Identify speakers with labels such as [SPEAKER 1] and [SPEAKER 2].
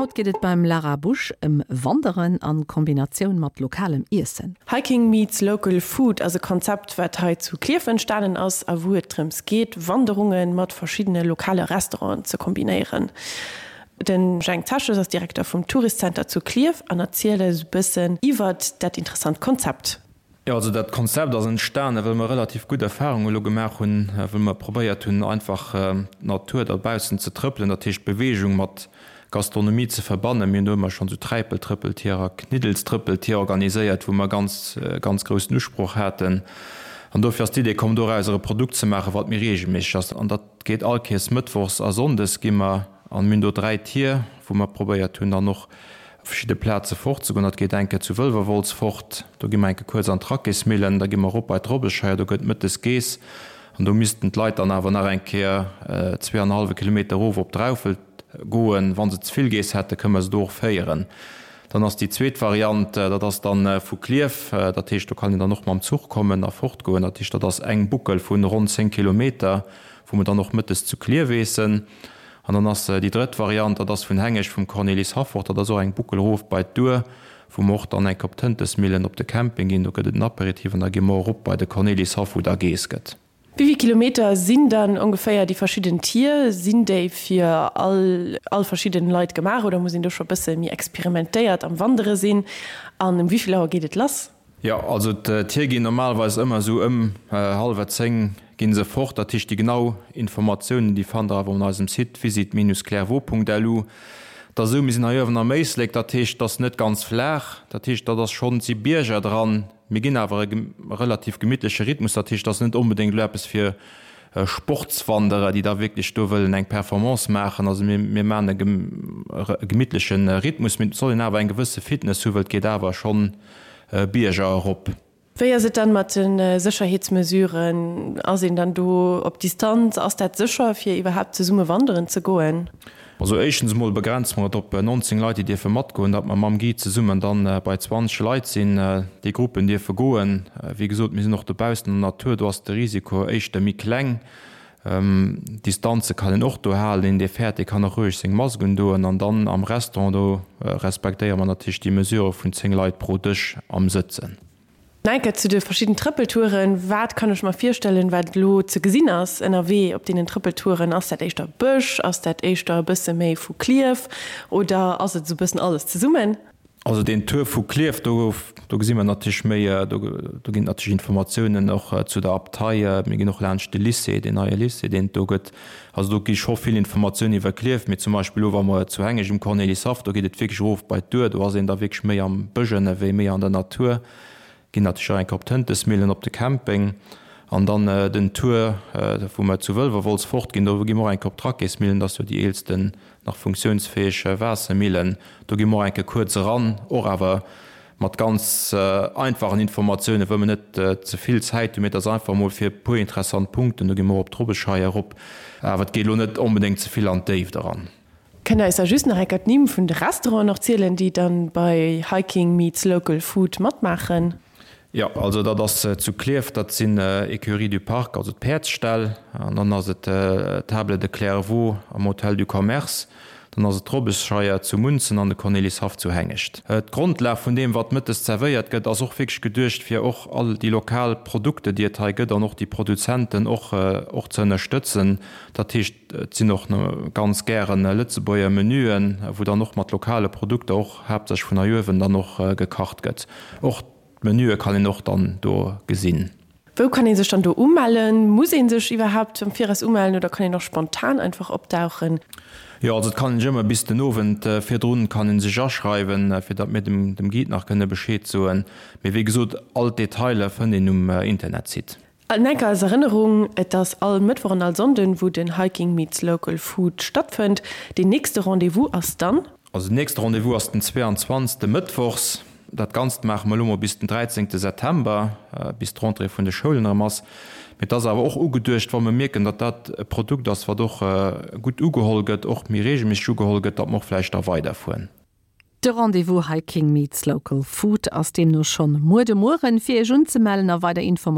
[SPEAKER 1] Haut geet et beim Lara Busch ëm Wanderen an Kombinatioun mat lokalem Iessen.
[SPEAKER 2] Hiking meets local food ass e Konzept wat hei zu Klierf entstanen ass a wou et drëms geet Wanderunge mat verschiddene lokale Restauranten ze kombinéieren. De Jhang Zeches ass Direkter vum Tourist Center zu Klierf an erzielt eis e bëssen iwwert dat interessant Konzept.
[SPEAKER 3] Jo, also dat Konzept ass entstanen, well mer relativ gutt Erfahrungen elo gemaach hunn, wou mer probéiert hunn, einfach d'Natur dobaussen ze trëppelen, dat heescht Beweegung mat Gastronomie ze verbannen. Mir hunn do ëmmer schonn esou Träipeltrëppeltier a Kniddelstrëppeltier organiséiert, wou mer ganz, ganz groussen Usproch haten. An dofir ass d'Idee komm, dorauser e Produkt ze maachen, wat méi reegelméisseg ass. An dat geet all Kees mëttwochs a sonndes gi mer, an mir hunn do 3 Tier, wou mer probéiert hunn, dann och Op verschidde Plaze fortzegoen. Dat geet eng Kéier zu Wëlwerwolz fort, do gi mer eng Kéier kuerz an d'Rackésmillen, da gi mer erop bei d'Robbescheier, do gëtt mëttes geess an do missten d'Leit dann awer nach eng Kéier zweeanenhallwe Kilometer erof op Draufelt goen. Wa se ze vill geess hätten, kënne mer se do och féieren. Dann ass déi zweet Variant, dat ass dann vu Klierf, dat heescht do kann een dann och mam Zuch kommen a fortgoen. Dat heescht, dat ass eng Buckel vu ronn 10 Kilometer, wou mer dann och mëttes zu Klierf eessen. An dann ass déi drëtt Variant, dat ass vun Hengescht vum Cornelis Haffort, dat ass och eng Buckel erof bei d'Our, wou mer och dann enk op d'Hëntesmillen op de Camping ginn. Do gëtt et en Apéritif an da gi mer erop bei de Cornelis Haff, wou da geess gëtt.
[SPEAKER 2] Wéi vill Kilometer sinn dann ongeféier déi verschidden Tier? Sinn déi fir all all verschidden Leit gemaach oder muss een do scho bësse méi experimentéiert am Wandere sinn? An um wéi vill Auer geet et lass?
[SPEAKER 3] Jo, also d'Tier ginn normalerweis ëmmer esou ëm hallwer 10 ginn se fort. Dat heescht déi genau Informatiounen déi fannt der awer un eisem Site visit-clairvaux.lu. Et ass esou, mir sinn hei uewen am Éislek, dat heescht et ass net ganz flaach, dat heescht dat ass schonn, et si Bierger dran, mir ginn awer e relativ gemittleche Rhythmus, dat heescht et ass net onbedéngt elo eppes fir Sportswanderer, déi da wierklech do wëllen eng Performance maachen. Also mir, mir maachen e gemittleche Rhythmus, mee et soll een awer eng gewësse Fitness hu, well et geet awer schonn Bierger erop.
[SPEAKER 2] Wéi ass et dann mat de Sécherheetsmesuren? Ass een dann do op Distanz? Ass dat sécher fir iwwerhaapt zesumme wanderen ze goen?
[SPEAKER 3] Also éischtens emol begrenze mer et op 19 Leit, déi dierfe matgoen, datt mer mam Guide zesummen dann bei 20 Leit sinn. Déi Gruppen dierfe goen. Wéi gesot, mir sinn och dobaussen an der Natur, do ass de Risiko éischter méi kleng. Distanze kann een och do halen. Een, dee fäert, dee kann och roueg seng Mask undoen. An dann am Restaurant, do respektéiere mer natierlech déi Mesure vun 10 Leit pro Dësch am Sëtzen.
[SPEAKER 2] Enker zu de verschidden Trëppeltouren, Wat kann ech mer virstellen, wat elo ze gesinn ass ënnerwee op deenen Trëppeltouren? Ass dat éischter Bësch? Ass dat éischter e bësse méi vu Klierf oder ass et esou e bëssen alles zesummen?
[SPEAKER 3] Also deen Tour vu Klierf, do do gesi mer natierlech méi, do do ginn et natierlech Informatiounen och zu der Abtei. Mir ginn och laanscht de Lycée, deen neie Lycée, deen et do gëtt. Also do gi scho vill Informatiounen iwwer Klierf. Mee zum Beispill elo wa mer zu Hengescht um Cornelyshaff, do geet et wierklech erof bei d'Our, do ass een da wierklech méi am Bësch ënnerwee, méi an der Natur. Ginn natierlech och eng Kéier op d'Hëntesmillen, op de Camping. An dann den Tour, wou mer zu Wëlwerwolz fortginn, do gi mer och eng Kéier op d'Rackésmillen, dat ass jo déi eelsten nach funktiounsfäeg Waassermillen. Do gi mer och eng Kéier kuerz eran, och awer mat ganz einfachen Informatiounen, wëll mer net ze vill Zäit hunn, mee et ass einfach emol fir e puer interessant Punkten. Do gi mer och op d'Robbescheier erop, awer et geet elo net onbedéngt ze vill an d'Déift eran.
[SPEAKER 2] Kënnt der eis da just nach enker d'Nimm vun de Restauranten och zielen, déi dann bei Hiking meets Local Food matmaachen?
[SPEAKER 3] Jo, also dat ass zu Klierf, dat sinn Écuries du Parc, also d'Päerdsställ, an dann ass et d'Table de Clairvaux am Hôtel du Commerce, dann ass et d'Robbesscheier zu Munzen an de Cornelyshaff zu Hengescht. D'Grondlag vun deem, wat mëttes zerwéiert gëtt, ass och wierklech geduecht, fir och all déi lokal Produkte, déi et hei gëtt, an och déi Produzenten och och ze ënnerstëtzen. Dat heescht, Et sinn och ganz gären Lëtzebuerger Menüen, wou dann och mat lokale Produkter, och haaptsächlech vun hei uewen, dann och gekacht gëtt. Och d'Menüe kann een och dann do gesinn.
[SPEAKER 2] Wou kann ee sech dann do umellen? Muss ee sech iwwerhaapt am Viraus umellen oder kann een och spontan einfach opdauchen?
[SPEAKER 3] Jo, also et kann een sech ëmmer bis den Owend virdrun kann een sech aschreiwen, fir datt mir dem Guide nach kënne Bescheed soen. Mee wéi gesot, all d'Detailer fënnt een um Internetsite.
[SPEAKER 2] An enker als Erënnerung, Et ass all Mëttwoch an all Sonnden, wou den Hiking meets Local Food stattfënnt. Deen nächste Rendez-vous ass dann.
[SPEAKER 3] Also den nächste Rendez-vous ass den 22. Mëttwochs. Dat Ganzt maache mer elo mol bis den 13. September, bis d'Rentrée vun de Schoulen erëm ass. Mee et ass awer och ugeduecht, wa mer mierken, datt dat e Produkt ass, wat och gutt ugeholl gëtt, och méi reegelméisseg ugeholl gëtt, datt mer och vläicht da weiderfueren.
[SPEAKER 1] De Rendez-vous Hiking meets Local Food ass deemno schonn muer de Mueren. Fir Iech unzemellen a weider Informatiounen.